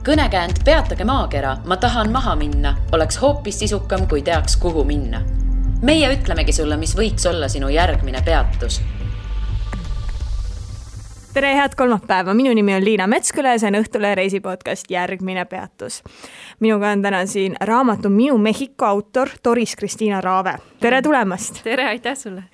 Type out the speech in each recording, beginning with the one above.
Kõnekäänd Peatage maakera, ma tahan maha minna, oleks hoopis sisukam, kui teaks, kuhu minna. Meie ütlemegi sulle, mis võiks olla sinu järgmine peatus. Tere, head kolmapäeva. Minu nimi on Liina Metsküla ja see on Õhtule reisipodcast Järgmine peatus. Minuga on täna siin raamatu Minu Mehhiko autor Doris Kristiina Raave. Tere tulemast! Tere, aitäh sulle!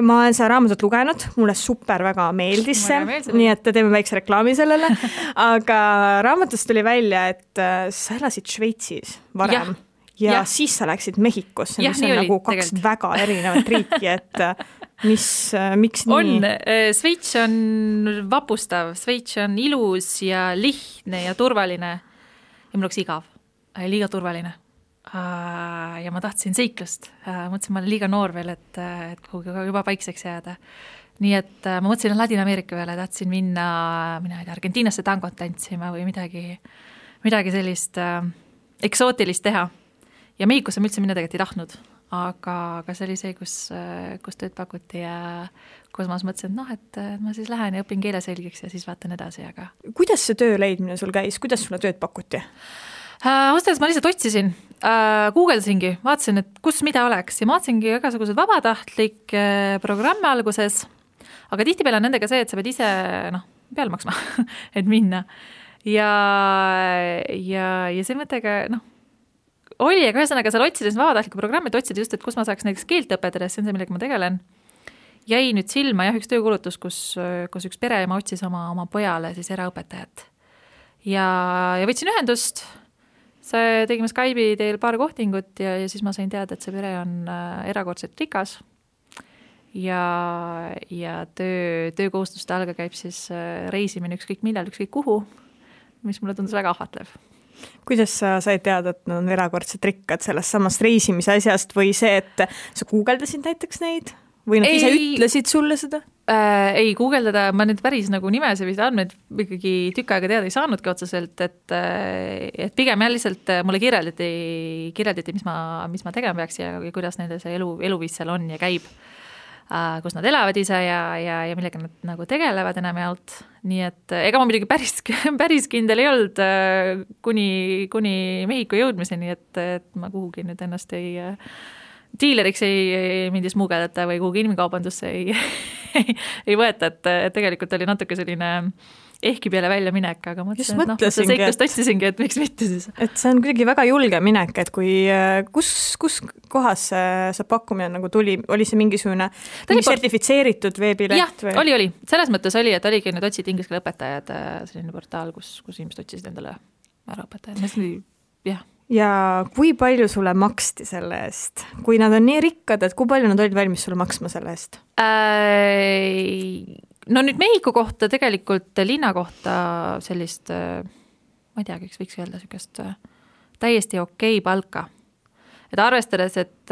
Ma olen seda raamatut lugenud, mulle super väga meeldis see, nii et teeme väikse reklaami sellele. Aga raamatust tuli välja, et sa elasid Šveitsis varem ja siis sa läksid Mehhikosse, mis on nagu kaks väga erinevat riiki, et miks nii? On, Šveits on vapustav, Šveits on ilus ja lihtne ja turvaline ja mul oleks igav, liiga turvaline ja ma tahtsin seiklust, mõtlesin, ma olen liiga noor veel, et kuhugi juba paikseks jääda, nii et ma mõtlesin Ladina-Ameerika peale, tahtsin minna Argentiinasse tangot tantsima või midagi sellist eksootilist teha ja Mehhikosse ma üldse minna tegelikult ei tahtnud. Aga see oli see, kus tööd pakuti ja kus ma mõtlesin, et ma siis lähen ja õpin keele selgiks ja siis vaatan edasi. Aga... Kuidas see töö leidmine sul käis? Kuidas sulle tööd pakuti? Ostas ma lihtsalt otsisin, guugeldasingi, vaatasin, et kus mida oleks ja ma vaatasingi igasugused vabatahtlik programme alguses, aga tihtipeale on nendega see, et sa pead ise peale maksma, et minna. Ja see mõttega, oli, aga ühesõnaga seal otsides vabatahtliku programmi, et otsida just, et kus ma saaks näiteks keelt õpetada, see on see, millega ma tegelen. Jäi nüüd silma üks töökulutus, kus üks pereema otsis oma pojale siis eraõpetajat. Ja võtsin ühendust, tegime Skype'i teel paar kohtingut ja siis ma sain teada, et see pere on erakordselt rikas. Ja töökohustuste alga käib siis reisimine ükskõik millal, ükskõik kuhu, mis mulle tundus väga ahvatlev. Kuidas sa said teada, et nad on erakordselt rikkad sellest samast reisimise asjast või see, et sa guugeldasid näiteks neid? Või nad ise ütlesid sulle seda? Ei guugeldada, ma nüüd päris nimesid või andmeid ikkagi tükk aega teada ei saanudki otseselt, et pigem lihtsalt mulle kirjeldati mis ma tegema peaks ja kuidas nende see eluviis seal on ja käib, kus nad elavad ise ja millega nad tegelevad enamjaolt. Nii et ega ma midagi päris kindel ei olnud kuni Mehhiko jõudmiseni, et ma kuhugi nüüd ennast diileriks ei mindis muugeldata või kuhugi inimkaubandusse ei võeta, et tegelikult oli natuke selline ehki peale välja minek, aga mõtlesin, seiklust otsisingi, et miks mitte siis. Et see on kuidagi väga julge minek, et kus kohas see pakkumine tuli, oli see mingisugune sertifitseeritud veebileht? Jah, oli. Selles mõttes oli, et oligi need otsid inglise keele õpetajad, selline portaal, kus inimesed otsisid endale äraõpetajad. Jah. Ja kui palju sulle maksti selle eest? Kui nad on nii rikkad, et kui palju nad olid valmis sulle maksma selle eest? No nüüd Mehhiko kohta tegelikult linna kohta sellist, ma ei tea, võiks öelda sellist täiesti okei palka. Et arvestades, et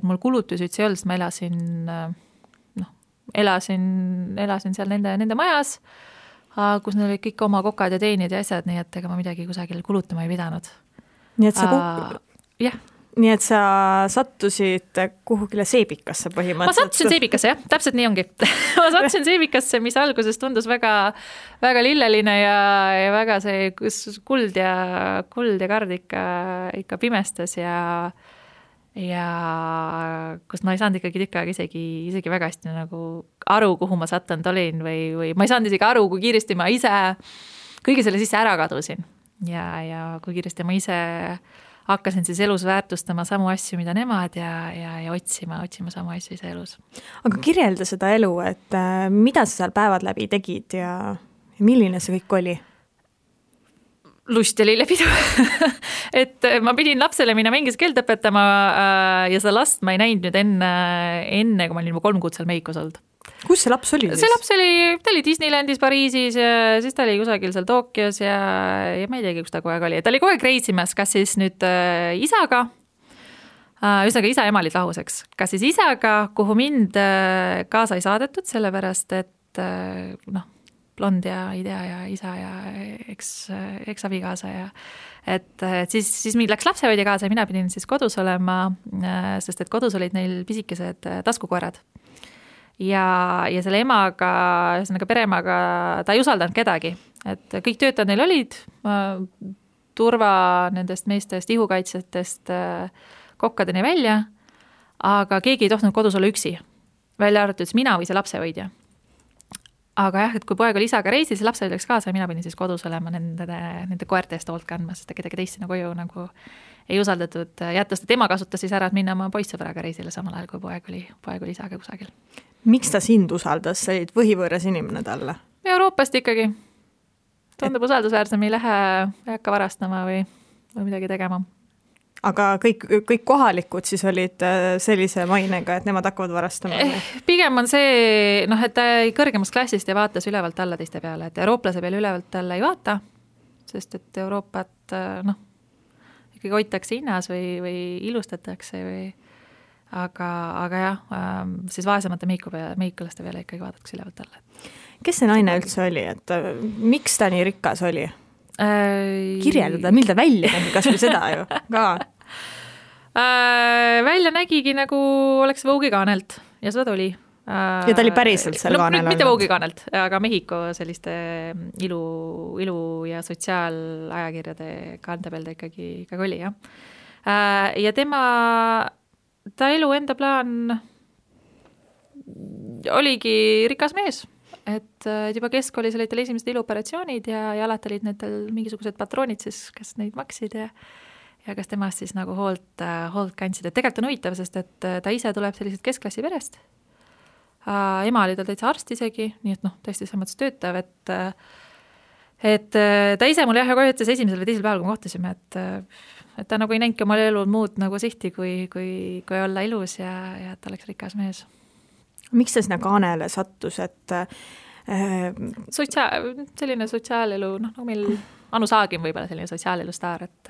mul kulutusi üldse ei olnud, ma elasin seal nende majas, kus neil olid kõik oma kokad ja teenid ja asjad, nii et ega ma midagi kusagil kulutama ei pidanud. Nii et sa sattusid kuhugile seebikasse põhimõtteliselt? Ma sattusin seebikasse, jah, täpselt nii ongi. Ma sattusin seebikasse, mis alguses tundus väga, väga lilleline ja väga see kuld ja kard ikka pimestas ja kus ma ei saanud ikkagi tükk aega isegi väga hästi aru, kuhu ma sattunud olin või ma ei saanud isegi aru, kui kiiresti ma ise kõige selle sisse ära kadusin. Ja kui kiiresti ma ise hakkasin siis elus väärtustama samu asju, mida nemad ja otsima samu asju ise elus. Aga kirjelda seda elu, et mida sa seal päevad läbi tegid ja milline see kõik oli? Lust ja lillepidu. Et ma pidin lapsele minna inglise keelt õpetama ja seda last ma ei näinud nüüd enne, kui ma olin 3 kuud seal Mehhikos olnud. Kus see laps oli? See laps ta oli Disneylandis Pariisis ja siis ta oli kusagil seal Tokyos ja ma ei teagi, kus ta kogu aeg oli. Ta oli kogu aeg reisimas, kas siis nüüd isaga, ühesõnaga isa ja ema olid lahuseks, kas siis isaga, kuhu mind kaasa ei saadetud, sellepärast et blond ja idea ja isa ja eks-abikaasa ja et siis mind läks lapsehoidja kaasa ja mina pidin siis kodus olema, sest et kodus olid neil pisikesed taskukoerad. Ja selle emaga, pereemaga, ta ei usaldanud kedagi, et kõik töötajad neil olid, turva nendest meestest, ihukaitsjatest kokkadeni välja, aga keegi ei tohtinud kodus olla üksi, välja arvatud mina või see lapsehoidja. Aga jah, et kui poeg oli isaga reisil, see lapsehoidja läks kaasa ja mina pidin siis kodus olema nende koerte eest hoolt kandma, sest kedagi teist sinna koju nagu ei usaldatud jätta, sest tema kasutas siis ära, et minna oma poissõbraga reisile samal ajal, kui poeg oli isaga kusagil. Miks ta sind usaldas? Sa olid võhivõõras inimene talle? Euroopast ikkagi. Tundub usaldusväärsem, ei hakka varastama või midagi tegema. Aga kõik kohalikud siis olid sellise mainega, et nemad hakkavad varastama? Pigem on see, et ta kõrgemast klassist ja vaatas ülevalt alla teiste peale, et eurooplase peale ülevalt alla ei vaata, sest et Euroopat ikkagi hoitakse hinnas või ilustatakse või aga jah, siis vaesemate meikulaste peale ikkagi vaadatakse ülevalt alla. Kes see naine üldse oli, et miks ta nii rikas oli? Kirjeldada, mil ta välja nägi, kas või seda ju ka? Välja nägigi nagu oleks Vogue'i kaanelt ja seda tuli. Ja ta oli päriselt seal kaanel olnud? Mitte Vogue'i kaanelt, aga Mehhiko selliste ilu ja sotsiaalajakirjade kaante peal ta ikkagi oli, jah. Ja ta elu enda plaan oligi rikas mees. Et juba keskkoolis olid tal esimesed iluoperatsioonid ja alati olid nendel mingisugused patroonid siis, kes neid maksid ja kes temast siis nagu hoolt kandsid. Et tegelikult on huvitav, sest et ta ise tuleb sellised keskklassi perest. Ema oli tal täitsa arst isegi, nii et tõesti selles mõttes töötav, et ta ise mul kohe ütles esimesel või teisel päeval, kui me kohtasime, et ta nagu ei näinudki omal elul muud nagu sihti, kui olla ilus ja et ta oleks rikas mees. Miks ta sinna kaanele sattus, et selline sotsiaalelu, nagu meil Anu Saagim võib-olla selline sotsiaalelu staar, et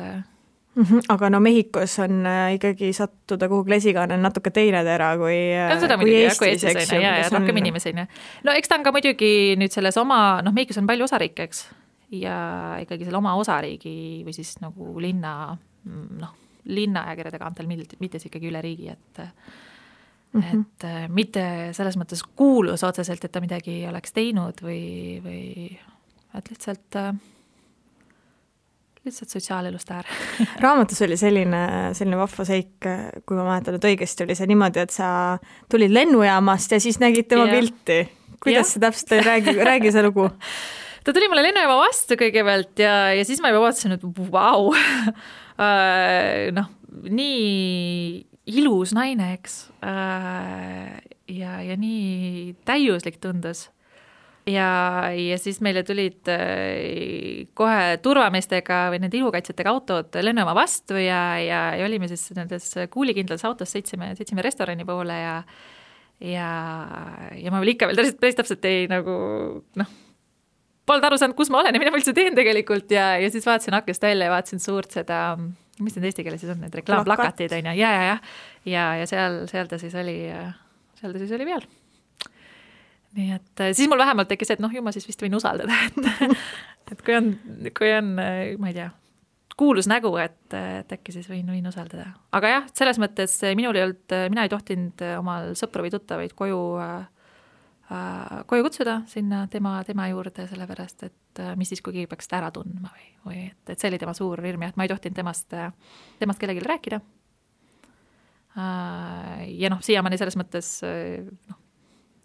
aga Mehhikos on ikkagi sattuda kuhugi lesikaanel natuke teine tera kui Eestis, eks ju. Ja rohkem inimesi. No eks ta on ka muidugi nüüd selles oma, Mehhikos on palju osariike, eks, ja ikkagi selle oma osariigi või siis nagu linna ajakirjade kaantel, mitte ikkagi üle riigi, et mitte selles mõttes kuulus otseselt, et ta midagi oleks teinud või et lihtsalt sotsiaalelust äär. Raamatus oli selline vahva seik, kui ma mäletan, et õigesti oli see niimoodi, et sa tulid lennujaamast ja siis nägid tema pilti. Kuidas see täpselt oli? Räägi see lugu. Ta tuli mulle lennujaama vastu kõigepealt ja siis ma juba vaatasin, et vau, nii ilus naine, eks, ja nii täiuslik tundus. Ja siis meile tulid kohe turvameestega või nende ilukaitsjatega autod lennujaama vastu ja olime siis nendes kuulikindlas autos, sõitsime restorani poole ja ma veel ikka veel päris täpselt ei nagu, polnud aru saanud, kus ma olen ja mida ma üldse teen tegelikult ja siis vaatasin akest välja ja vaatasin suurt seda, mis need eesti keeles siis on, need reklaamplakatid on ja seal ta siis oli peal. Nii et siis mul vähemalt tekkis, et ju ma siis vist võin usaldada, et kui on, ma ei tea, kuulus nägu, et äkki siis võin usaldada. Aga jah, selles mõttes mina ei tohtinud omal sõpru või tuttavaid koju kutsuda sinna tema juurde, sellepärast, et mis siis, kui keegi peaks ära tundma või et see oli tema suur hirm, et ma ei tohtinud temast kellelegi rääkida. Ja siiamaani selles mõttes,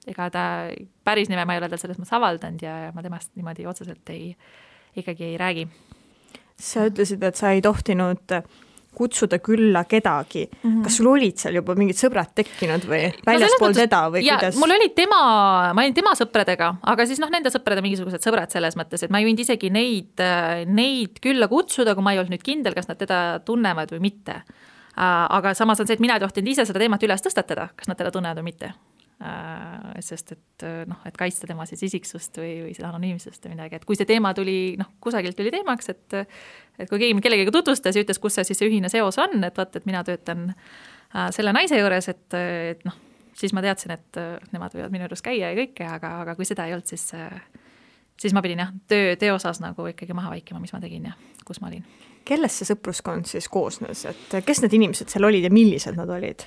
ega ta päris nime ma ei ole tal selles mõttes avaldanud ja ma temast niimoodi otseselt ikkagi ei räägi. Sa ütlesid, et sa ei tohtinud kutsuda külla kedagi. Kas sul olid seal juba mingid sõbrad tekkinud või väljaspool teda või kuidas? Mul oli ma olin tema sõpradega, aga siis nende sõprade mingisugused sõbrad selles mõttes, et ma ei võinud isegi neid külla kutsuda, kui ma ei olnud nüüd kindel, kas nad teda tunnevad või mitte. Aga samas on see, et mina ei tohtinud ise seda teemat üles tõstatada, kas nad teda tunnevad või mitte. Sest et kaitsta tema siis isiksust või seda anonüümsust või midagi, et kui see teema tuli, kusagilt tuli teemaks, et kui keegi kellegagi tutvustas ja ütles, kus see siis see ühine seos on, et vaata, et mina töötan selle naise juures, et siis ma teadsin, et nemad võivad minu juures käia ja kõike, aga kui seda ei olnud, siis ma pidin töö osas nagu ikkagi maha vaikima, mis ma tegin ja kus ma olin. Kellest see sõpruskond siis koosnes, et kes need inimesed seal olid ja millised nad olid?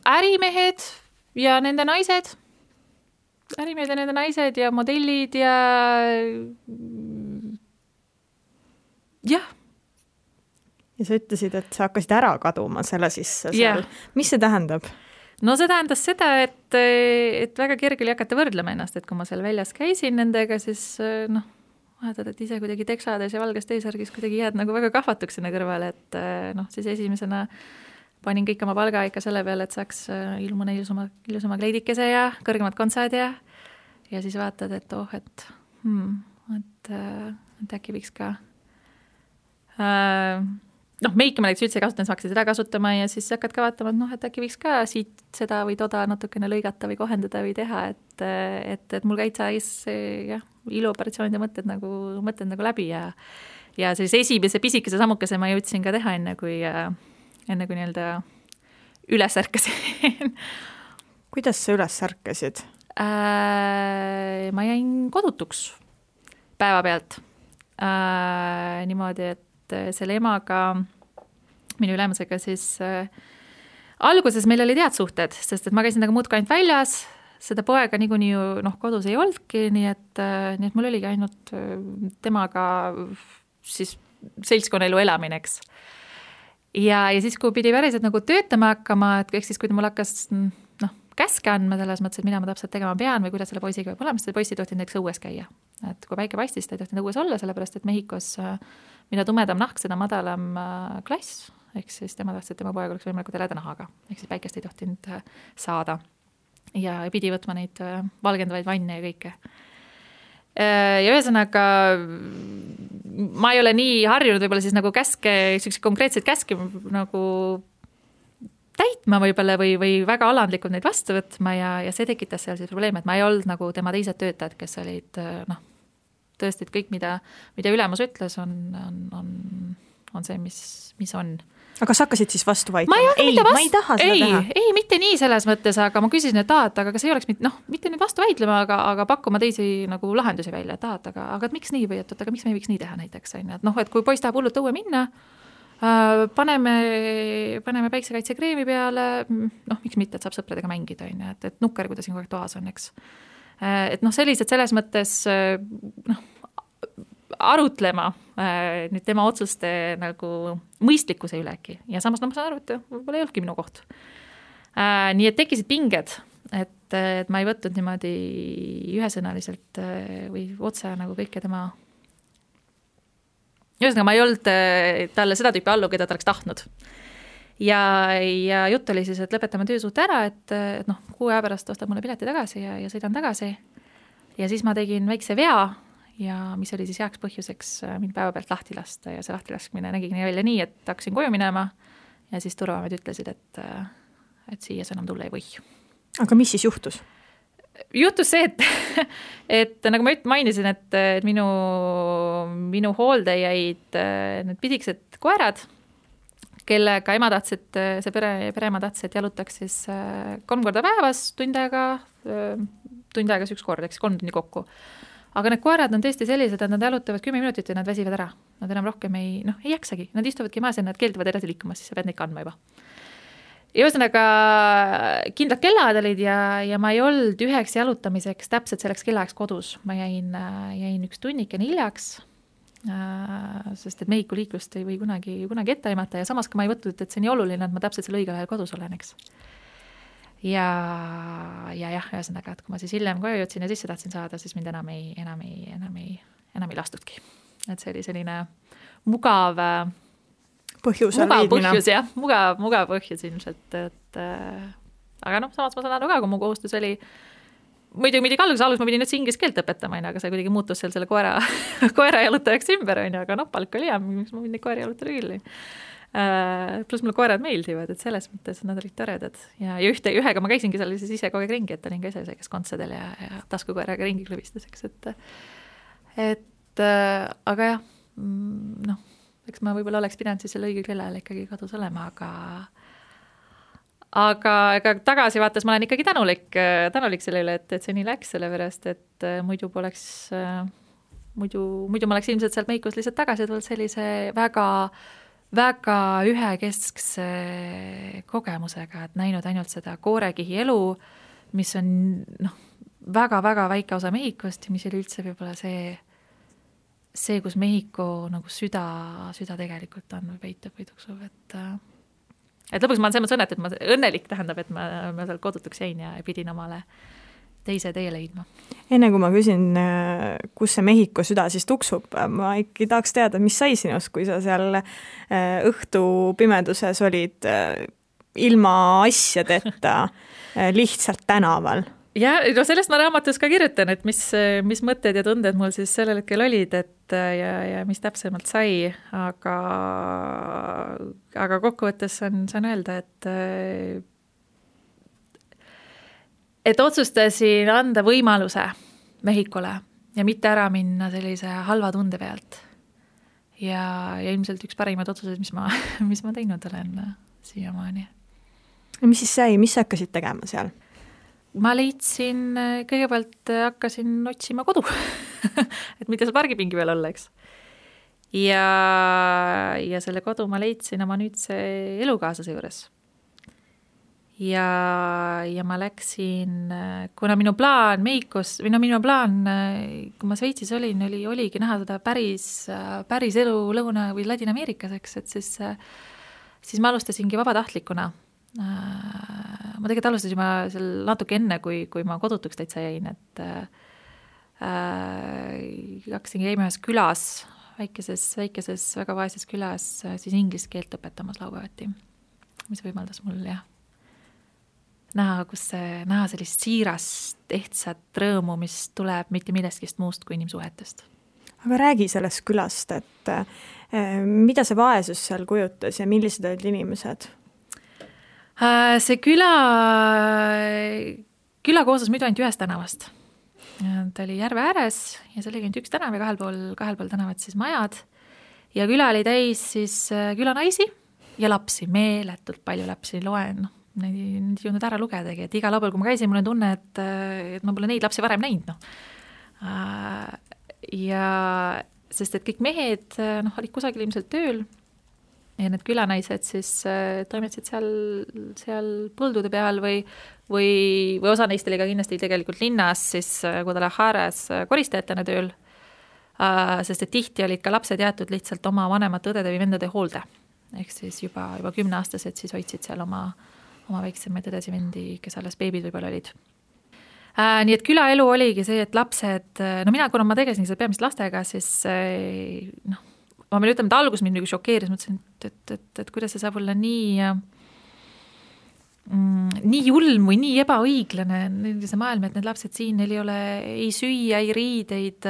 Ärimehed ja nende naised. Ärimehed ja nende naised ja modellid ja jah. Ja sa ütlesid, et sa hakkasid ära kaduma selle sisse seal. Mis see tähendab? No see tähendas seda, et väga kerge oli hakata võrdlema ennast, et kui ma seal väljas käisin nendega, siis vaatad, et ise kuidagi teksades ja valges T-särgis kuidagi jääd nagu väga kahvatuks sinna kõrvale, et siis esimesena panin kõik oma palga ikka selle peale, et saaks ilmuna ilusama kleidikese ja kõrgemad kontsad ja siis vaatad, et et äkki võiks ka meiki ma näiteks üldse kasutanud, sa hakkasid seda kasutama ja siis hakkad ka vaatama, et äkki võiks ka siit seda või toda natukene lõigata või kohendada või teha, et mul käid iluoperatsioonide mõtted nagu läbi ja sellise esimese pisikese sammukese ma jõudsin ka teha enne kui nii-öelda üles ärkasin. Kuidas sa üles ärkasid? Ma jäin kodutuks päeva pealt. Niimoodi, et selle emaga, minu ülemusega siis alguses meil oli head suhted, sest et ma käisin nagu muudkui ainult väljas, seda poega niikuinii ju kodus ei olnudki, nii et mul oligi ainult temaga siis seltskonnaelu elamineks. Ja siis, kui pidi päriselt nagu töötama hakkama, et siis, kui ta mul hakkas käske andma selles mõttes, et mida ma täpselt tegema pean või kuidas selle poisiga võib olema, sest poisi tohtinud näiteks õues käia. Et kui päike paistis, ta ei tohtinud õues olla, sellepärast et Mehhikos mida tumedam nahk, seda madalam klass, ehk siis tema tahtis, et tema poeg oleks võimalikult heleda nahaga, ehk siis päikest ei tohtinud saada ja pidi võtma neid valgendavaid vanne ja kõike. Ja ühesõnaga ma ei ole nii harjunud võib-olla siis nagu käske, konkreetseid käske nagu täitma võib-olla või väga alandlikult neid vastu võtma ja see tekitas seal siis probleem, et ma ei olnud nagu tema teised töötajad, kes olid tõesti, et kõik, mida ülemus ütles, on see, mis on. Aga sa hakkasid siis vastu vaidlema? Ma ei taha seda teha. Ei, mitte nii selles mõttes, aga ma küsisin, et aga kas ei oleks mitte nüüd vastu vaidlema, aga pakkuma teisi nagu lahendusi välja, et aga miks nii või aga miks me ei võiks nii teha näiteks, et kui poiss tahab hullult õue minna, paneme päiksekaitsekreemi peale, miks mitte, et saab sõpradega mängida, et nukker, kui ta siin kogu aeg toas on, eks. Et sellised selles mõttes arutlema nüüd tema otsuste nagu mõistlikkuse ülegi ja samas ma saan aru, et võib-olla ei olnudki minu koht. Nii et tekkisid pinged, et ma ei võtnud niimoodi ühesõnaliselt või otse nagu kõike tema ühesõnaga ma ei olnud talle seda tüüpi allu, keda ta oleks tahtnud. Ja jutt oli siis, et lõpetame töösuhte ära, et 6 aja pärast ostab mulle pileti tagasi ja sõidan tagasi. Ja siis ma tegin väikse vea ja mis oli siis heaks põhjuseks mind päeva pealt lahti lasta ja see lahti laskmine nägigi välja nii, et hakkasin koju minema ja siis turvamed ütlesid, et siia sa enam tulla ei või. Aga mis siis juhtus? Juhtus see, et nagu ma mainisin, et minu hoolde jäid need pidiksed koerad, kellega ema tahtsid, see pereema tahtsid, et jalutaks siis 3 korda päevas, tund aega siis 1 kord, eks 3 tundi kokku. Aga need koerad on tõesti sellised, et nad jalutavad 10 minutit ja nad väsivad ära. Nad enam rohkem ei jaksagi. Nad istuvadki maas ja nad keelduvad edasi liikuma, siis sa pead neid kandma juba. Ja ühesõnaga kindlad kellad olid ja ma ei olnud üheks jalutamiseks täpselt selleks kellaajaks kodus. Ma jäin 1 tunnikene hiljaks, sest et Mehhiku liiklust ei või kunagi ette aimata ja samas ka ma ei võtnud, et see nii oluline, et ma täpselt selle õigel ajal kodus olen, eks. Ja ühesõnaga, et kui ma siis hiljem koju jõudsin ja sisse tahtsin saada, siis mind enam ei lastudki. Et see oli selline mugav põhjus, mugav põhjus ilmselt, aga samas ma saan aru ka, kui mu kohustus oli muidugi alguses ma pidin üldse inglise keelt õpetama, aga see kuidagi muutus seal selle koera jalutajaks ümber, aga palk oli hea, miks ma neid koera jalutada küll. Plus mulle koerad meeldivad, et selles mõttes nad olid toredad ja ühega ma käisingi seal siis ise kogu aeg ringi, et olin ka ise see, kes kontsadel ja taskukoeraga ringi klõbistuseks, aga jah, eks ma võib-olla oleks pidanud siis selle õige kellel ikkagi kodus olema, aga tagasi vaates ma olen ikkagi tänulik selle üle, et see nii läks, sellepärast, et muidu ma oleks ilmselt sealt Mehhikos lihtsalt tagasi tulnud sellise väga ühekeskse kogemusega, et näinud ainult seda koorekihi elu, mis on väga-väga väike osa Mehhikost ja mis oli üldse võib-olla see see, kus Mehhiko nagu süda tegelikult on või peitub või tuksub, et lõpuks ma olen selles mõttes et ma õnnelik tähendab, et ma seal kodutuks jäin ja pidin omale teise tee leidma. Enne kui ma küsin, kus see Mehhiko süda siis tuksub, ma ikkagi tahaks teada, mis sai sinust, kui sa seal õhtu pimeduses olid ilma asjadeta lihtsalt tänaval? Ja no sellest ma raamatus ka kirjutan, et mis mõtted ja tunded mul siis sellel hetkel olid, ja mis täpsemalt sai, aga kokkuvõttes saan öelda, et otsustasin anda võimaluse Mehhikole ja mitte ära minna sellise halva tunde pealt. Ja ilmselt üks parimaid otsuseid, mis ma teinud olen siiamaani. Mis siis sai, mis sa hakkasid tegema seal? Ma leidsin, kõigepealt hakkasin otsima kodu, et mitte seal pargipingi peal olla, eks. Ja selle kodu ma leidsin oma nüüdse elukaaslase juures. Ja ma läksin, kuna minu plaan Mehhikos, minu plaan, kui ma Šveitsis oligi näha seda päris elu Lõuna- või Ladina-Ameerikas, eks, et siis ma alustasingi vabatahtlikuna. Ma tegelikult alustasin juba seal natuke enne, kui ma kodutuks täitsa jäin, et hakkasin käima ühes külas, väikeses väga vaeses külas, siis inglise keelt õpetamas laupäevati, mis võimaldas mul näha sellist siirast, ehtsat rõõmu, mis tuleb mitte millestki muust kui inimsuhetest. Aga räägi sellest külast, et mida see vaesus seal kujutas ja millised olid inimesed? See küla koosnes muidu ainult ühest tänavast. Ta oli järve ääres ja see oli ainult üks tänav ja kahel pool tänavat siis majad. Ja küla oli täis siis külanaisi ja lapsi, meeletult palju lapsi, loen. Neid ei jõudnud ära lugedagi, et iga laupäeval, kui ma käisin, mul on tunne, et ma pole neid lapsi varem näinud. Ja sest et kõik mehed olid kusagil ilmselt tööl, ja need külanaised siis toimetasid seal põldude peal või osa neist oli ka kindlasti tegelikult linnas siis Guadalajaras koristajatena tööl, sest et tihti olid ka lapsed jäetud lihtsalt oma vanemate õdede või vendade hoolde. Ehk siis juba 10-aastased siis hoidsid seal oma väiksemaid õdesi vendi, kes alles beebid võib-olla olid. Nii et külaelu oligi see, et lapsed, kuna ma tegelesin seda peamiselt lastega, siis ma pean ütlema, et algus mind šokeeris, mõtlesin, et kuidas see saab olla nii julm või nii ebaõiglane see maailm, et need lapsed siin, neil ei ole ei süüa, ei riideid,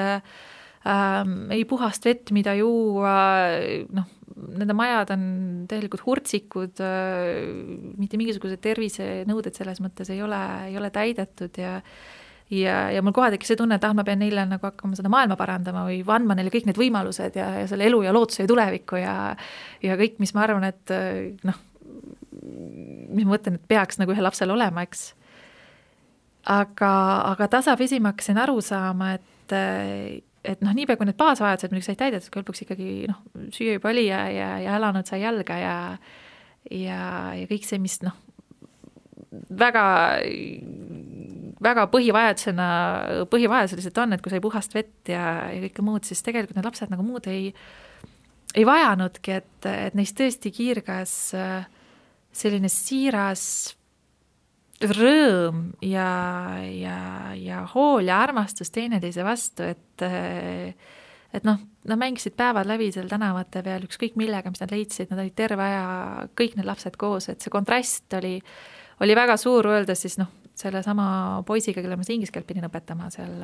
ei puhast vett, mida juua, nende majad on tegelikult hurtsikud, mitte mingisugused tervisenõuded selles mõttes ei ole täidetud ja mul kohe tekkis see tunne, et ma pean neile nagu hakkama seda maailma parandama või andma neile kõik need võimalused ja selle elu ja lootuse ja tuleviku ja kõik, mis ma arvan, et mis ma mõtlen, et peaks nagu ühe lapsel olema, eks. Aga tasapisi ma hakkasin aru saama, et niipea kui need baasvajadused muidugi said täidetud, kui lõpuks ikkagi süüa juba oli ja elanud sai jalga ja kõik see, mis väga põhivajadused on, et kui sai puhast vett ja kõike muud, siis tegelikult need lapsed nagu muud ei vajanudki, et neist tõesti kiirgas selline siiras rõõm ja hool ja armastus teineteise vastu, et nad mängisid päevad läbi seal tänavate peal ükskõik millega, mis nad leidsid, nad olid terve aja kõik need lapsed koos, et see kontrast oli väga suur, öeldes siis selle sama poisiga, kelle ma inglise keelt pidin õpetama seal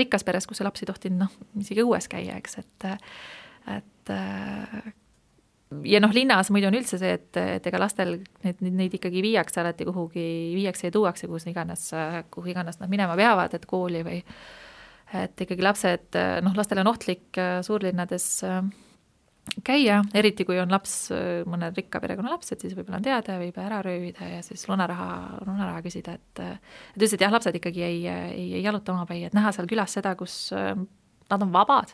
rikkas peres, kus see laps ei tohtinud isegi õues käia, eks, et ja linnas muidu on üldse see, et ega lastel neid ikkagi viiakse alati kuhugi, viiakse ja tuuakse, kuhu iganes nad minema peavad, et kooli või et ikkagi lapsed, lastel on ohtlik suurlinnades käia, eriti kui on laps, mõne rikka perekonna lapsed, siis võib-olla on teada, võib ära röövida ja siis lunaraha küsida, et ütlesid, jah, lapsed ikkagi ei jaluta omapäi, et näha seal külas seda, kus nad on vabad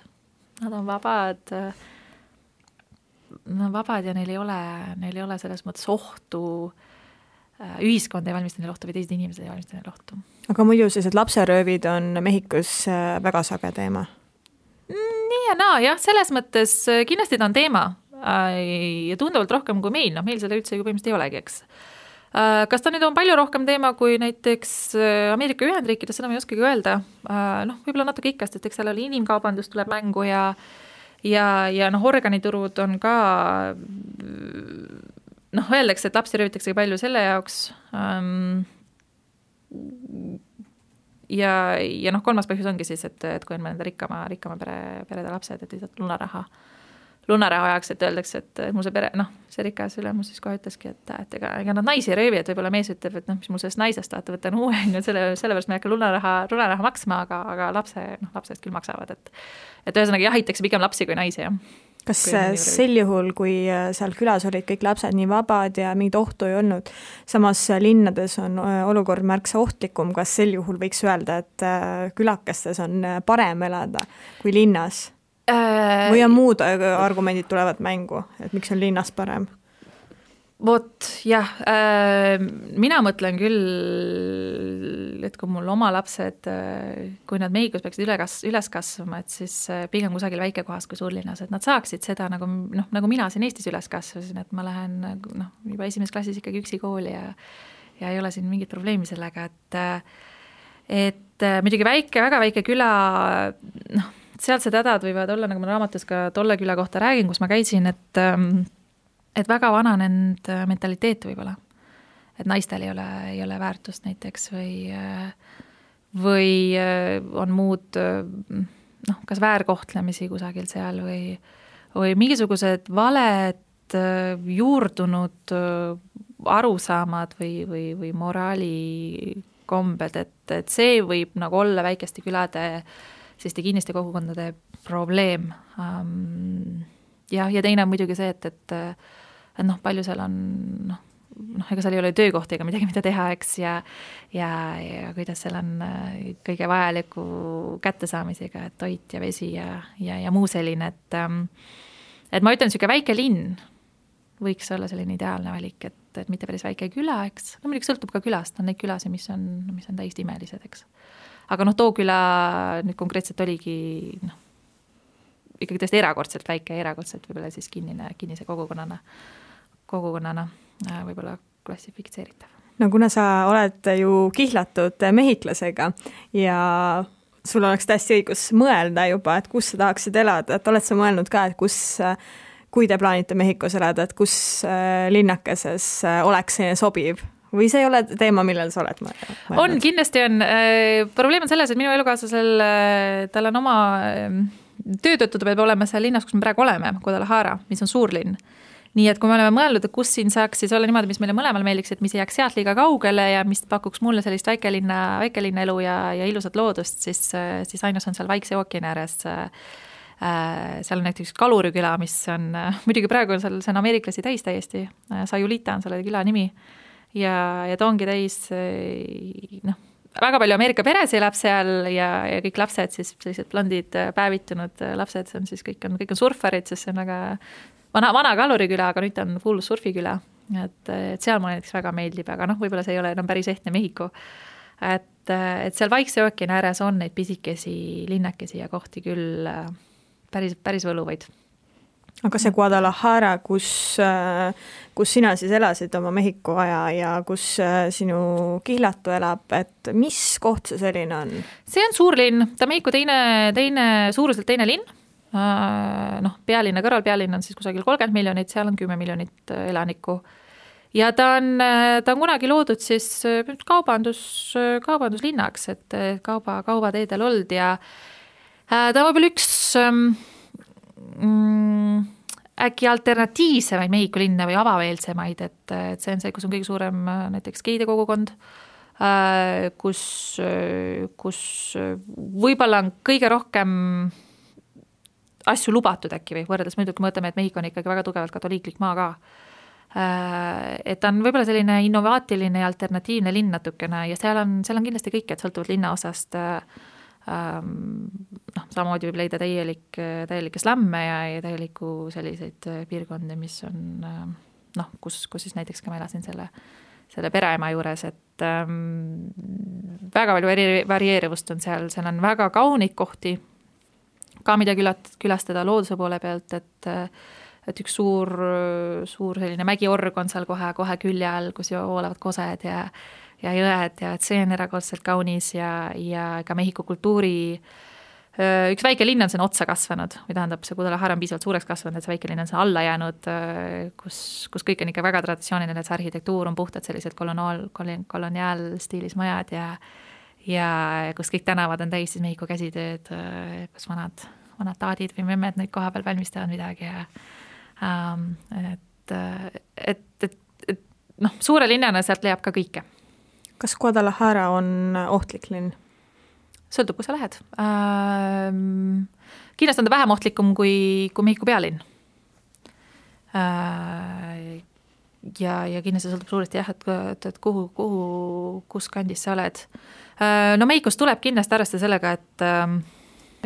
ja neil ei ole selles mõttes ohtu, ühiskond ei valmista neil ohtu või teised inimesed ei valmista neil ohtu. Aga muidu sellised lapseröövid on Mehhikos väga sage teema? ja naa, jah, selles mõttes kindlasti ta on teema ja tunduvalt rohkem kui meil, noh, meil seda üldse ju põhimõtteliselt ei olegi, eks. Kas ta nüüd on palju rohkem teema kui näiteks Ameerika Ühendriikides, seda ma ei oskagi öelda, noh, võib-olla natuke ikkast, et eks seal oli inimkaubandus tuleb mängu ja noh, organiturud on ka, noh, öeldakse, et lapsi röövitakse palju selle jaoks ja noh, kolmas põhjus ongi siis, et kui on mõnda rikkama perede lapsed, et lihtsalt lunaraha ajaks, et öeldakse, et mul see pere, noh, see rikas ülemus siis kohe ütleski, et ega nad naisi röövi, et võib-olla mees ütleb, et noh, mis mul sellest naisest tahate võtta uue, sellepärast me ei hakka lunaraha maksma, aga lapsed küll maksavad, et ühesõnaga jahitakse pigem lapsi kui naisi, jah. Kas sel juhul, kui seal külas olid kõik lapsed nii vabad ja mingit ohtu ei olnud, samas linnades on olukord märksa ohtlikum, kas sel juhul võiks öelda, et külakestes on parem elada kui linnas? Või on muud argumendid tulevad mängu, et miks on linnas parem? Vot, jah, mina mõtlen küll, et kui mul oma lapsed, kui nad Mehhikos peaksid üles kasvama, et siis pigem kusagil väikekohas kui suurlinnas, et nad saaksid seda nagu mina siin Eestis üles kasvasin, et ma lähen juba esimeses klassis ikkagi üksi kooli ja ei ole siin mingit probleemi sellega, et muidugi väga väike küla, noh, sealsed hädad võivad olla, nagu ma raamatus ka tolle küla kohta räägin, kus ma käisin, et väga vananenud mentaliteet võib-olla. Et naistel ei ole väärtust näiteks või on muud, noh, kas väärkohtlemisi kusagil seal või mingisugused valed juurdunud arusaamad või moraalikombed, et see võib nagu olla väikeste külade selliste kinniste kogukondade probleem. Ja teine on muidugi see, et noh, palju seal on, noh, ega seal ei ole töökohti ega midagi, mida teha, eks, ja kuidas seal on kõige vajaliku kättesaamisega, et toit ja vesi ja muu selline, et ma ütlen, niisugune väike linn võiks olla selline ideaalne valik, et mitte päris väike küla, eks, no muidugi sõltub ka külast, on neid külasi, mis on täiesti imelised, eks. Aga noh, Tooküla nüüd konkreetselt oligi ikkagi tõesti erakordselt väike, erakordselt võib-olla siis kinnise kogukonnana võib-olla klassifitseeritav. No kuna sa oled ju kihlatud mehhiklasega ja sul oleks täiesti õigus mõelda juba, et kus sa tahaksid elada, et oled sa mõelnud ka, et kui te plaanite Mehhikos elada, et kus linnakeses oleks see sobiv? Või see ei ole teema, millel sa oled mõelnud? On, kindlasti on. Probleem on selles, et minu elukaaslasel, tal on oma töötõttu peab olema seal linnas, kus me praegu oleme, Guadalajara, mis on suurlinn. Nii et kui me oleme mõelnud, et kus siin saaks siis olla niimoodi, mis meile mõlemal meeldiks, et mis ei jääks sealt liiga kaugele ja mis pakuks mulle sellist väikelinna elu ja ilusat loodust, siis ainus on seal Vaikse ookeani ääres. Seal on näiteks Kaluriküla, mis on, muidugi praegu on seal, see on ameeriklasi täis täiesti, Sayulita on selle küla nimi. Ja ta ongi täis, noh, väga palju Ameerika peres elab seal ja kõik lapsed siis sellised blondid päevitunud lapsed, see on siis kõik on surfarid, sest see on väga vana Kaluriküla, aga nüüd on full surfiküla, et seal mulle näiteks väga meeldib, aga noh, võib-olla see ei ole enam päris ehtne Mehhiko, et seal Vaikse ookeani ääres on neid pisikesi linnakesi ja kohti küll päris võluvaid. Aga see Guadalajara, kus sina siis elasid oma Mehhiko aja ja kus sinu kihlatu elab, et mis koht see selline on? See on suur linn, ta Mehhiko suuruselt teine linn, noh, pealinna kõrval, pealinn on siis kusagil 30 miljonit, seal on 10 miljonit elanikku. Ja ta on kunagi loodud siis kaubanduslinnaks, et kaubateedel olnud ja ta on võib-olla üks äkki alternatiivsemaid Mehhiko linna või avameelsemaid, et see on see, kus on kõige suurem näiteks geide kogukond, kus võib-olla on kõige rohkem asju lubatud äkki või võrreldes muidugi mõtleme, et Mehhiko on ikkagi väga tugevalt katoliiklik maa ka. Et on võib-olla selline innovaatiline ja alternatiivne linn natukene ja seal on kindlasti kõik, et sõltuvalt linna osast noh, samamoodi võib leida täielikke slamme ja täielikku selliseid piirkondi, mis on noh, kus siis näiteks ka ma elasin selle pereema juures, et väga palju varieerivust on seal on väga kauneid kohti, ka mida külastada looduse poole pealt, et üks suur selline mägiorg on seal kohe külje all, kus voolavad kosed ja jõed ja et see on erakordselt kaunis ja ka Mehhiko kultuuri üks väike linn on siin otsa kasvanud, või tähendab, see Guadalajara on piisavalt suureks kasvanud, et see väike linn on siin alla jäänud, kus kõik on ikka väga traditsiooniline, et see arhitektuur on puhtalt sellised koloniaalstiilis majad ja kus kõik tänavad on täis siis Mehhiko käsitööd, kus vanad taadid või memmed neid koha peal valmistavad midagi ja et suure linnana sealt leiab ka kõike. Kas Guadalajara on ohtlik linn? Sõltub, kus sa lähed. Kindlasti on ta vähem ohtlikum kui Mehhiko pealinn. Ja kindlasti sõltub suuresti jah, et kus kandis sa oled. No Mehhikos tuleb kindlasti arvestada sellega, et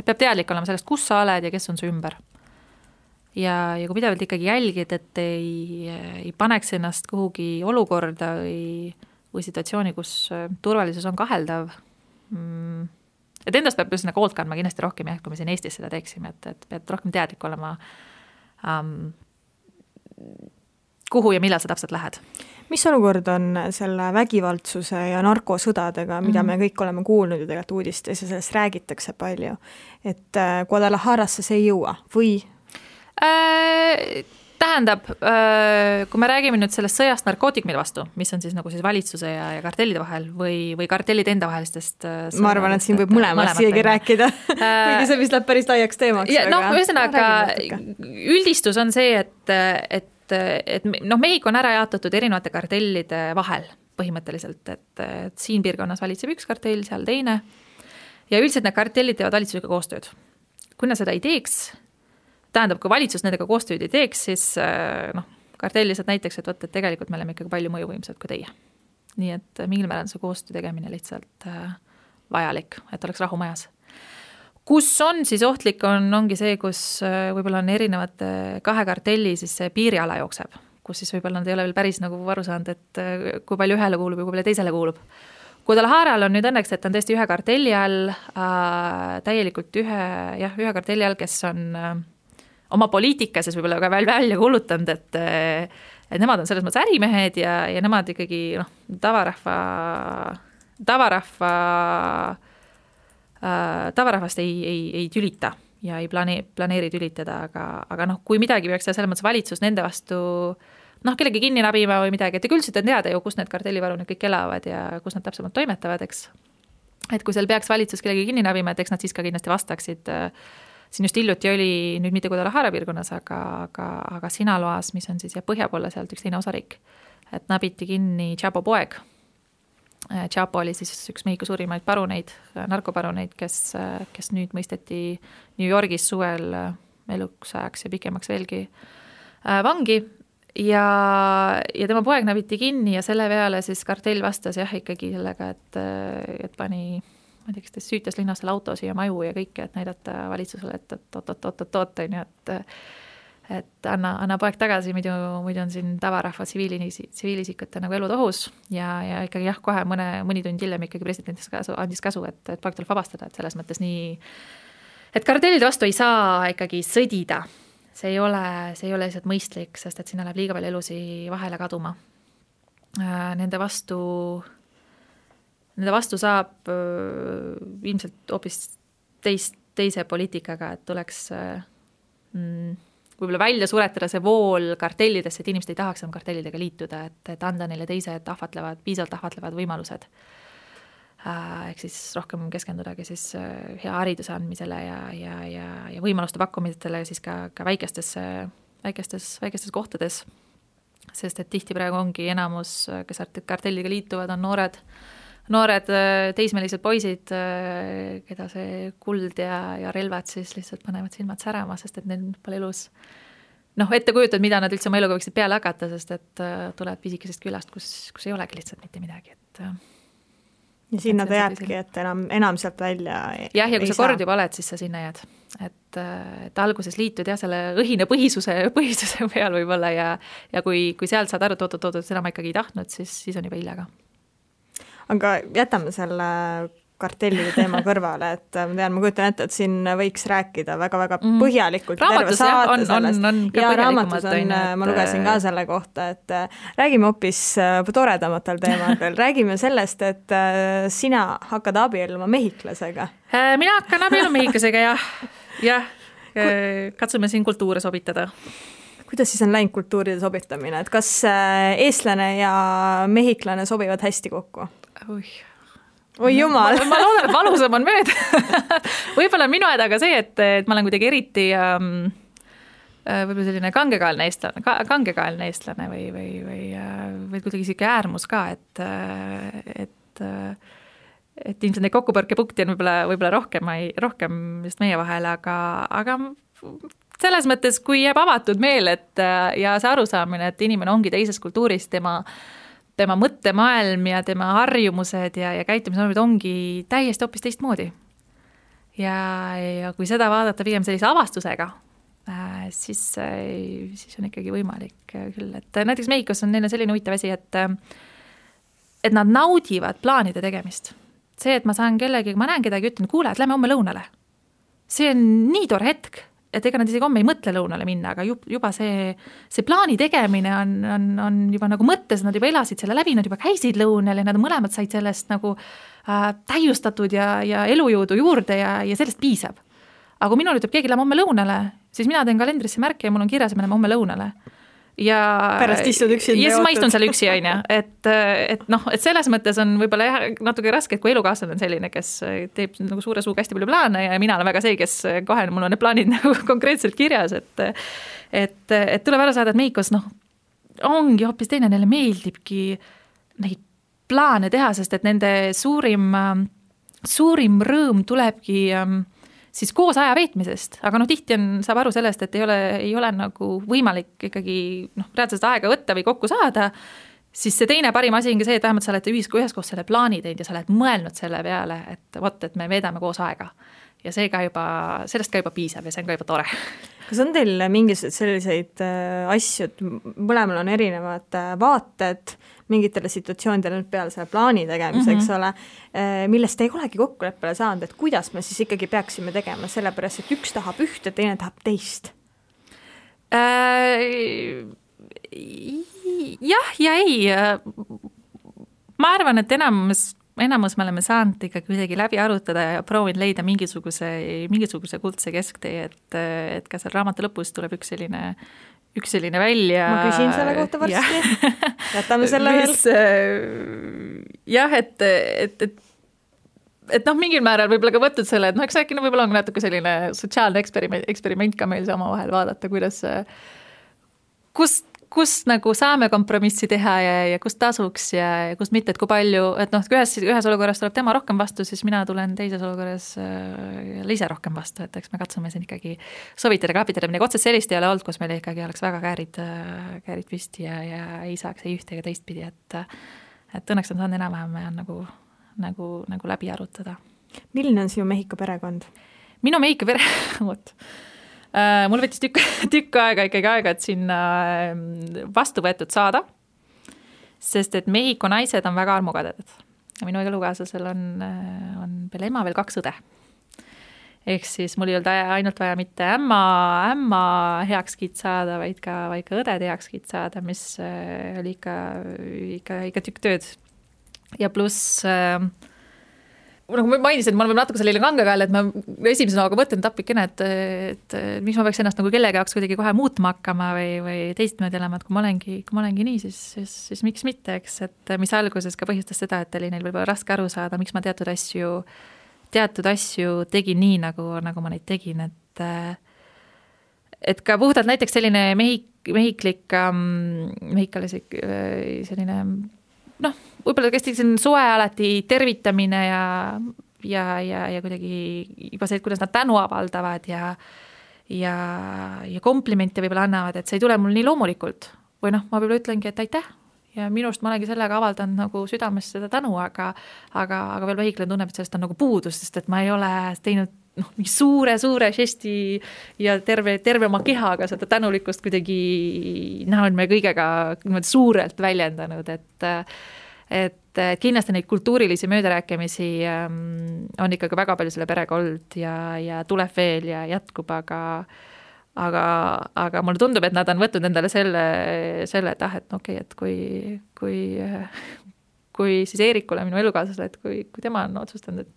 peab teadlik olema sellest, kus sa oled ja kes on su ümber. Ja kui pidevalt ikkagi jälgid, et ei paneks ennast kuhugi olukorda või situatsiooni, kus turvalisus on kaheldav, et endast peab just hoolt kandma kindlasti rohkem, kui me siin Eestis seda teeksime, et pead rohkem teadlik olema, kuhu ja millal sa täpselt lähed. Mis olukord on selle vägivaldsuse ja narkosõdadega, mida me kõik oleme kuulnud ju tegelikult uudistes ja sellest räägitakse palju, et Guadalajarasse see ei jõua või? Tähendab, kui me räägime nüüd sellest sõjast narkootikumide vastu, mis on siis nagu siis valitsuse ja kartellide vahel või kartellide enda vahelistest ma arvan, et siin võib mõlemast siiagi rääkida, kuigi see vist läheb päris laiaks teemaks. Ühesõnaga, üldistus on see, et Mehhiko on ära jaotatud erinevate kartellide vahel põhimõtteliselt, et siin piirkonnas valitseb üks kartell, seal teine ja üldiselt need kartellid teevad valitsusega koostööd. Kui nad seda ei teeks, tähendab, kui valitsus nendega koostööd ei teeks, siis kartell lihtsalt näiteks, et tegelikult me oleme ikkagi palju mõjuvõimsad kui teie. Nii et mingil määral see koostöö tegemine lihtsalt vajalik, et oleks rahu majas. Kus on siis ohtlik ongi see, kus võib-olla on erinevate kahe kartelli siis see piiriala jookseb, kus siis võib-olla nad ei ole veel päris nagu aru saanud, et kui palju ühele kuulub ja kui palju teisele kuulub. Guadalajaral on nüüd õnneks, et on tõesti ühe kartelli all, täielikult ühe kartelli all, kes on oma poliitikases võib-olla ka välja kuulutanud, et nemad on selles mõttes ärimehed ja nemad ikkagi tavarahvast ei tülita ja ei planeeri tülitada, aga kui midagi peaks selles mõttes valitsus nende vastu kellegi kinni nabima või midagi, et üldiselt on teada ju, kus need kartellivarunid kõik elavad ja kus nad täpsemalt toimetavad, eks. Et kui seal peaks valitsus kellegi kinni nabima, et eks nad siis ka kindlasti vastaksid. Siin just hiljuti oli nüüd mitte Guadalajara piirkonnas, aga Sinaloas, mis on siis põhja poole sealt üks teine osariik, et nabiti kinni Chapo poeg. Chapo oli siis üks Mehhiko suurimaid paruneid, narkoparuneid, kes nüüd mõisteti New Yorgis suvel eluks ajaks ja pikemaks veelgi vangi ja tema poeg nabiti kinni ja selle peale siis kartell vastas ikkagi sellega, et pani ma ei tea, kes süütas linnasel autosi ja maju ja kõike, et näidata valitsusele, et et anna poeg tagasi, muidu on siin tavarahva tsiviilisikute nagu elud ohus ja ikkagi kohe mõni tund hiljem ikkagi president andis käsu, et poeg tuleb vabastada, et selles mõttes nii, et kartellide vastu ei saa ikkagi sõdida. See ei ole lihtsalt mõistlik, sest et sinna läheb liiga palju elusi vahele kaduma. Nende vastu saab ilmselt hoopis teise poliitikaga, et tuleks võib-olla välja suretada see vool kartellidesse, et inimesed ei tahaks kartellidega liituda, et anda neile teised piisavalt ahvatlevad võimalused. Ehk siis rohkem keskendudagi siis hea hariduse andmisele ja võimaluste pakkumisele siis ka väikestes kohtades. Sest et tihti praegu ongi enamus, kes kartelliga liituvad, on noored teismelised poisid, keda see kuld ja relvad siis lihtsalt panevad silmad särama, sest et neil pole elus ette kujutad, mida nad üldse oma eluga võiksid peale hakata, sest et tulevad pisikesest külast, kus ei olegi lihtsalt mitte midagi. Ja sinna ta jääbki, et enam sealt välja ja kui sa kord juba oled, siis sa sinna jääd. Et alguses liitud selle õhine põhisuse peal võib-olla ja kui sealt saad aru, et seda ma ikkagi ei tahtnud, siis on juba hiljaga. Aga jätame selle kartellide teema kõrvale, et ma kujutan ette, et siin võiks rääkida väga-väga põhjalikult. Raamatus on ja raamatus ma lugesin ka selle kohta, et räägime hoopis toredamatel teemadel. Räägime sellest, et sina hakkad abielluma mehhiklasega. Mina hakkan abielluma mehhiklasega, jah. Katsume siin kultuure sobitada. Kuidas siis on läinud kultuuride sobitamine? Et kas eestlane ja mehhiklane sobivad hästi kokku? Oi jumal. Ma loodan, et valusam on mööda. Võib-olla minu hädaga see, et ma olen kuidagi eriti võib-olla selline kangekaelne eestlane või kuidagi siuke äärmus ka, et ilmselt neid kokkupõrkepunkti on võib-olla rohkem just meie vahel, aga selles mõttes, kui jääb avatud meel, ja see arusaamine, et inimene ongi teises kultuuris, tema mõttemaailm ja tema harjumused ja käitumisnormid ongi täiesti hoopis teistmoodi. Ja kui seda vaadata pigem sellise avastusega, siis on ikkagi võimalik küll. Et näiteks Mehhikos on neil selline huvitav asi, et nad naudivad plaanide tegemist. See, et ma saan kellegi, ma näen kedagi, ütlen, kuule, et lähme homme lõunale. See on nii tore hetk, et ega nad isegi homme ei mõtle lõunale minna, aga juba see plaani tegemine on juba nagu mõttes, nad juba elasid selle läbi, nad juba käisid lõunal ja nad mõlemad said sellest nagu täiustatud ja elujõudu juurde ja sellest piisab. Aga kui minul ütleb keegi lähme homme lõunale, siis mina teen kalendrisse märke ja mul on kirjas, et me lähme homme lõunale. Ja pärast istud üksi ja siis ma istun seal üksi, et selles mõttes on võib-olla natuke raske, et kui elukaaslane on selline, kes teeb nagu suure suuga hästi palju plaane ja mina olen väga see, kes kohe mul on need plaanid nagu konkreetselt kirjas, et tuleb ära saada, et Mehhikos ongi hoopis teine, neile meeldibki neid plaane teha, sest et nende suurim rõõm tulebki siis koos aja veetmisest, aga tihti saab aru sellest, et ei ole nagu võimalik ikkagi reaalselt aega võtta või kokku saada, siis see teine parim asi ongi see, et vähemalt sa oled üheskoos selle plaani teinud ja sa oled mõelnud selle peale, et me veedame koos aega. Ja sellest ka juba piisab ja see on ka juba tore. Kas on teil mingisugused selliseid asju, et mõlemal on erinevad vaated mingitele situatsioonidele peale selle plaani tegemiseks, ole, millest ei olegi kokkuleppele saanud, et kuidas me siis ikkagi peaksime tegema, sellepärast, et üks tahab ühte, teine tahab teist? Jah ja ei. Ma arvan, et enamus me oleme saanud ikka kuidagi läbi arutada ja proovin leida mingisuguse kuldse kesktee, et ka seal raamatu lõpus tuleb üks selline välja. Ma küsin selle kohta varsti. Jätame selle veel. Jah, et mingil määral võib-olla ka võtnud selle, et eks äkki võib-olla on natuke selline sotsiaalne eksperiment ka meil sama vahel vaadata, kus nagu saame kompromissi teha ja kus tasuks ja kus mitte, et kui palju, et ühes olukorras tuleb tema rohkem vastu, siis mina tulen teises olukorras ise rohkem vastu, et eks me katsume siin ikkagi sovitada, kapitada, midagi otsest sellist ei ole olnud, kus meil ikkagi oleks väga käärid püsti ja ei saaks ei ühte ega teist pidi, et õnneks on saanud enam-vähem nagu läbi arutada. Milline on sinu Mehhiko perekond? Minu Mehhiko perekond? Mul võttis tükk aega, et sinna vastu võetud saada, sest et Mehhiko naised on väga armukaded. Minu elukaaslasel on peale ema veel 2 õde. Ehk siis mul ei olnud ainult vaja mitte ämma heakskiit saada, vaid ka õdede heakskiit saada, mis oli ikka tükk tööd. Ja pluss nagu ma mainisin, et ma olen natuke selline kangekael, et ma esimese nooga mõtlen tapikene, et miks ma peaks ennast nagu kellegi jaoks kuidagi kohe muutma hakkama või teistmoodi elama, et kui ma olengi nii, siis miks mitte, eks, et mis alguses ka põhjustas seda, et oli neil võib-olla raske aru saada, miks ma teatud asju tegin nii, nagu ma neid tegin, et ka puhtalt näiteks selline mehhikalisik selline võib-olla kästi soe alati tervitamine ja kuidagi juba see, et kuidas nad tänu avaldavad ja komplimente võib-olla annavad, et see ei tule mul nii loomulikult. Või ma võib-olla ütlengi, et aitäh ja minust ma olengi sellega avaldanud nagu südames seda tänu, aga veel mehhiklane tunneb, et sellest on nagu puudus, sest et ma ei ole teinud mingi suure žesti ja terve oma kehaga seda tänulikkust kuidagi näol me kõigega suurelt väljendanud, et kindlasti neid kultuurilisi möödarääkimisi on ikkagi väga palju selle perega olnud ja tuleb veel ja jätkub, aga mulle tundub, et nad on võtnud endale selle, et et okei, et kui siis Eerikule, minu elukaaslasele, et kui tema on otsustanud,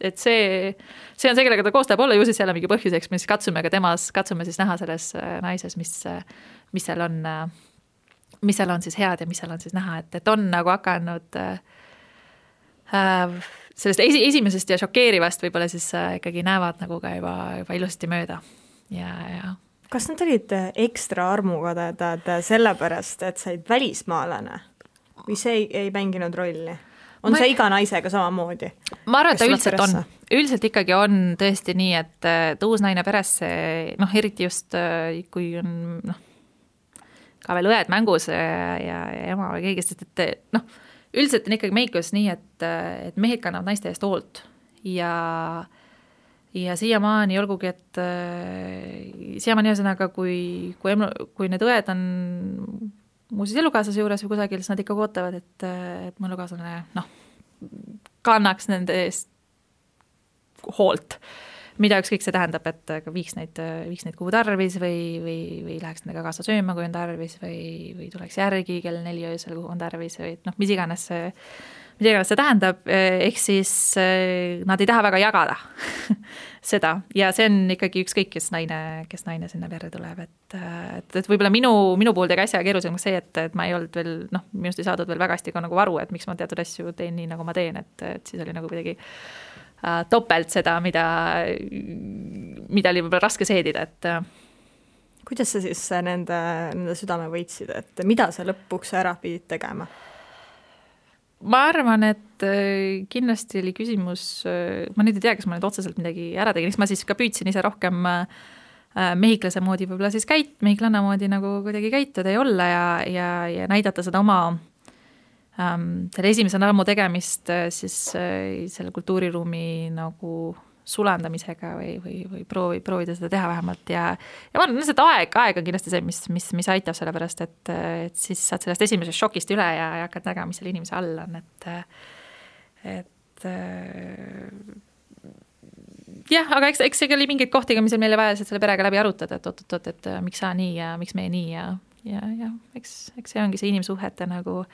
et see on see, kellega ta koos tahab olla, ju siis jälle mingi põhjuseks, mis katsume siis näha selles naises, mis seal on siis head ja mis seal on siis näha, et on nagu hakanud sellest esimesest ja šokeerivast võib-olla siis ikkagi näevad nagu ka juba ilusasti mööda ja kas nad olid ekstra armukadedad sellepärast, et said välismaalane või see ei mänginud rolli? On see iga naisega samamoodi? Ma arvan, et ta üldiselt on. Üldiselt ikkagi on tõesti nii, et uus naine peresse, eriti just kui on ka veel õed mängus ja ema või keegi, sest et üldiselt on ikkagi Mehhikos nii, et mehed kannavad naiste eest hoolt ja siiamaani olgugi, et siiamaani ühesõnaga, kui need õed on muuseas elukaaslase juures või kusagil, siis nad ikka ootavad, et mu elukaaslane kannaks nende eest hoolt, mida ükskõik see tähendab, et viiks neid kuhu tarvis või läheks nendega kaasa sööma, kui on tarvis või tuleks järgi kell 4 öösel, kuhu on tarvis või mis iganes see tähendab, ehk siis nad ei taha väga jagada seda ja see on ikkagi ükskõik, kes naine sinna perre tuleb, et võib-olla minu puhul tegi asja keerulisemaks see, et ma ei olnud veel, minust ei saadud veel väga hästi ka nagu aru, et miks ma teatud asju teen nii, nagu ma teen, et siis oli nagu kuidagi topelt seda, mida oli võib-olla raske seedida, et kuidas sa siis nende südame võitsid, et mida sa lõpuks ära pidid tegema? Ma arvan, et kindlasti oli küsimus, ma nüüd ei tea, kas ma nüüd otseselt midagi ära tegin, eks ma siis ka püüdsin ise rohkem mehhiklase moodi võib-olla siis mehhiklanna moodi nagu kuidagi käituda ja olla ja näidata seda oma selle esimese ammu tegemist siis selle kultuuriruumi nagu sulandamisega või proovida seda teha vähemalt ja ma arvan, et aeg on kindlasti see, mis aitab sellepärast, et siis saad sellest esimesest šokist üle ja hakkad nägema, mis selle inimese all on, et jah, aga eks see oli mingeid kohti, mis meile vajas, et selle perega läbi arutada, et miks sa nii ja miks meie nii ja eks see ongi see inimsuhete nagu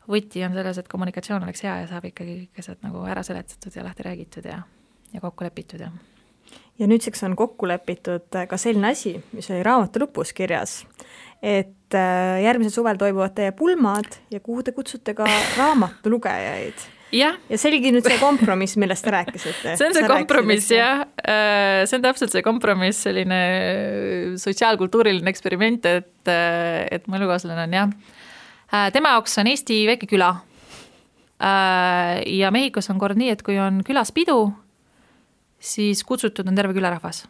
võti on selles, et kommunikatsioon oleks hea ja saab ikkagi asjad nagu ära seletatud ja lahti räägitud ja kokku lepitud. Ja nüüdseks on kokku lepitud ka selline asi, mis oli raamatu lõpus kirjas, et järgmisel suvel toimuvad teie pulmad ja kuhu te kutsute ka raamatu lugejaid. Ja see oligi nüüd see kompromiss, millest te rääkisite. See on see kompromiss, jah. See on täpselt see kompromiss, selline sotsiaalkultuuriline eksperiment, et mu elukaaslane on, jah. Tema jaoks on Eesti väike küla ja Mehhikos on kord nii, et kui on külas pidu, siis kutsutud on terve külarahvas.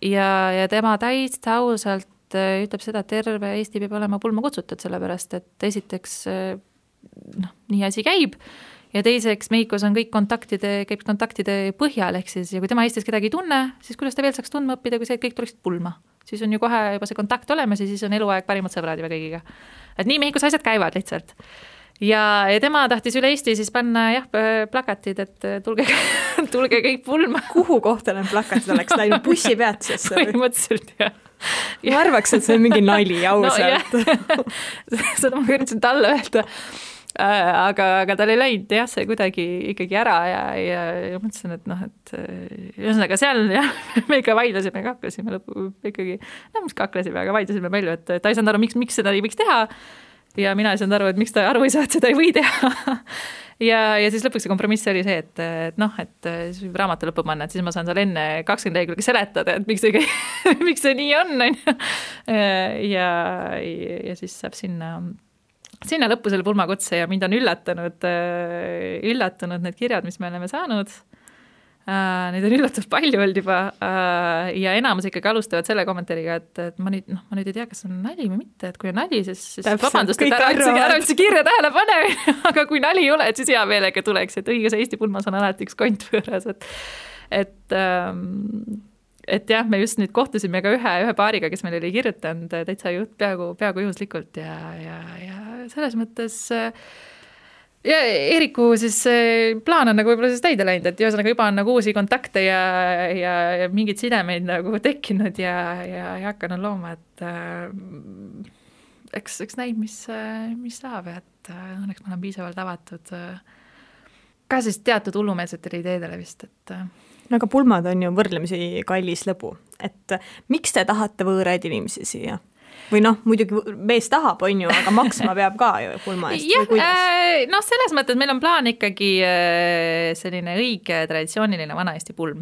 Ja tema täitsa ausalt ütleb seda, et terve Eesti peab olema pulma kutsutud, sellepärast et esiteks nii asi käib ja teiseks Mehhikos on kõik käib kontaktide põhjal, ehk siis ja kui tema Eestis kedagi ei tunne, siis kuidas ta veel saaks tundma õppida, kui see, et kõik tuleksid pulma. Siis on ju kohe juba see kontakt olemas ja siis on eluaeg parimad sõbrad juba kõigiga. Et nii Mehhikos asjad käivad lihtsalt. Ja tema tahtis üle Eesti siis panna plakatid, et tulge kõik pulma. Kuhu kohta need plakatid oleks läinud bussipeatusesse? Põhimõtteliselt, jah. Ma arvaks, et see on mingi nali ausalt. Seda ma üritasin talle öelda. Aga tal ei läinud jah, see kuidagi ikkagi ära ja mõtlesin, et ühesõnaga seal jah, me ikka vaidlesime, kaklesime lõpu ikkagi, mis kaklesime, aga vaidlesime palju, et ta ei saanud aru, miks seda ei võiks teha ja mina ei saanud aru, et miks ta aru ei saa, et seda ei või teha ja siis lõpuks see kompromiss oli see, et raamatu lõppu panna, et siis ma saan seal enne 20 lehekülge seletada, et miks see nii on ja siis saab sinna lõppu selle pulmakutse ja mind on üllatanud need kirjad, mis me oleme saanud. Neid on üllatavalt palju olnud juba ja enamus ikkagi alustavad selle kommentaariga, et ma nüüd ei tea, kas on nali või mitte, et kui on nali, siis vabandust, et ära üldse kirja tähele pane, aga kui nali ei ole, et siis hea meelega tuleks, et õiges Eesti pulmas on alati üks kont võõras, et jah, me just nüüd kohtusime ka ühe paariga, kes meil oli kirjutanud täitsa peaaegu juhuslikult ja selles mõttes ja Eeriku siis plaan on nagu võib-olla siis täide läinud, et ühesõnaga juba on nagu uusi kontakte ja mingeid sidemeid nagu tekkinud ja hakanud looma, et eks näib, mis saab, et õnneks ma olen piisavalt avatud ka siis teatud hullumeelsetele ideedele vist, et no aga pulmad on ju võrdlemisi kallis lõbu, et miks te tahate võõraid inimesi siia? Või muidugi mees tahab, on ju, aga maksma peab ka ju pulma eest. Jah, selles mõttes meil on plaan ikkagi selline õige traditsiooniline vana-Eesti pulm,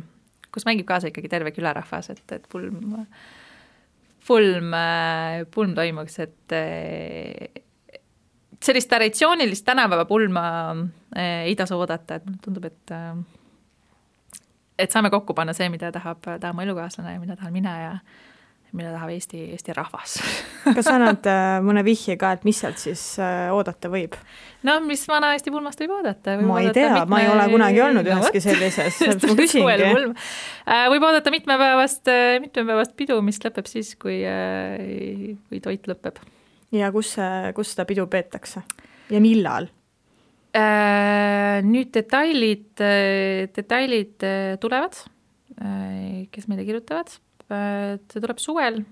kus mängib kaasa ikkagi terve külarahvas, et pulm toimuks, et sellist traditsioonilist tänapäeva pulma ei tasu oodata, et mulle tundub, et saame kokku panna see, mida tahab mu elukaaslane ja mida tahan mina ja mida tahab Eesti rahvas. Kas sa annad mõne vihje ka, et mis sealt siis oodata võib? No mis vana Eesti pulmast võib oodata? Ma ei tea, ma ei ole kunagi olnud üheski sellises. Ma küsingi. Võib oodata mitmepäevast pidu, mis lõpeb siis, kui toit lõpeb. Ja kus seda pidu peetakse? Ja millal? Nüüd detailid tulevad, kes meile kirjutavad. See tuleb suvel,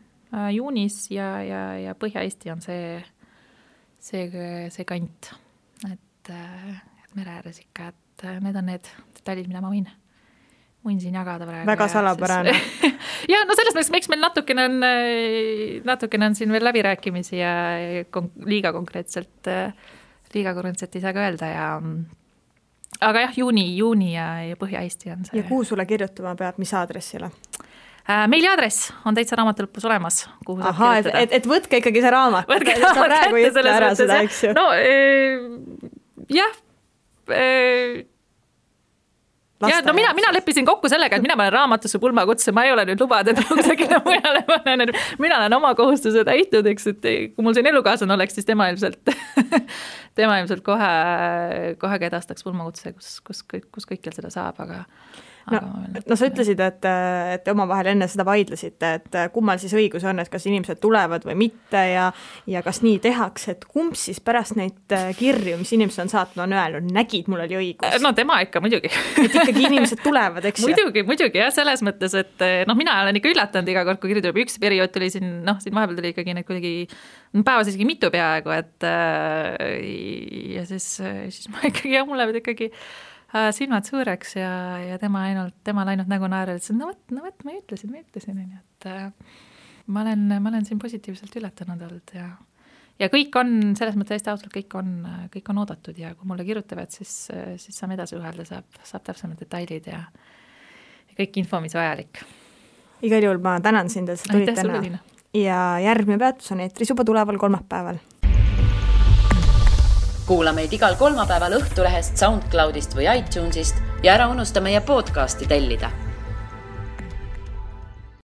juunis ja Põhja-Eesti on see kant, et mere ääres ikka, et need on need detailid, mida ma võin siin jagada praegu. Väga salapärane. Ja no selles mõttes, miks meil natukene on siin veel läbirääkimisi ja liiga konkreetselt ei saa ka öelda aga jah, juuni ja Põhja-Eesti on see. Ja kuhu sulle kirjutama peab, mis aadressile? Meiliaadress on täitsa raamatulõpus olemas, kuhu saab kirjutada. Et võtke ikkagi see raamat. Võtke raamat kätte selles mõttes. No jah. Ja no mina leppisin kokku sellega, et mina panen raamatusse pulmakutse, ma ei ole nüüd lubada, et kusagile mujale panen, mina olen oma kohustuse täitnud, eks, et kui mul siin elukaaslane oleks, siis tema ilmselt kohe edastaks pulmakutse, kus kõikjal seda saab, aga sa ütlesid, et omavahel enne seda vaidlesite, et kummal siis õigus on, et kas inimesed tulevad või mitte ja kas nii tehakse, et kumb siis pärast neid kirju, mis inimesed on saatnud, on öelnud, nägid, mul oli õigus. No tema ikka muidugi. Et ikkagi inimesed tulevad, eks? Muidugi, jah, selles mõttes, et mina olen ikka üllatanud iga kord, kui kirju tuleb. Üks periood tuli siin vahepeal tuli ikkagi need kuidagi päevas isegi mitu peaaegu, et ja siis ma ikkagi, mul lähevad ikkagi silmad suureks ja tema ainult nägu naerel, et no võt, ma ütlesin, et ma olen siin positiivselt üllatanud olnud ja kõik on, selles mõttes hästi ausalt, kõik on oodatud ja kui mulle kirjutavad, siis saame edasi ühelda, saab täpsemad detailid ja kõik info, mis vajalik. Igal juhul ma tänan sind, et sa tulid täna. Ja järgmine peatus on eetris juba tuleval kolmapäeval. Kuula meid igal kolmapäeval Õhtulehest, SoundCloudist või iTunesist ja ära unusta meie podcasti tellida.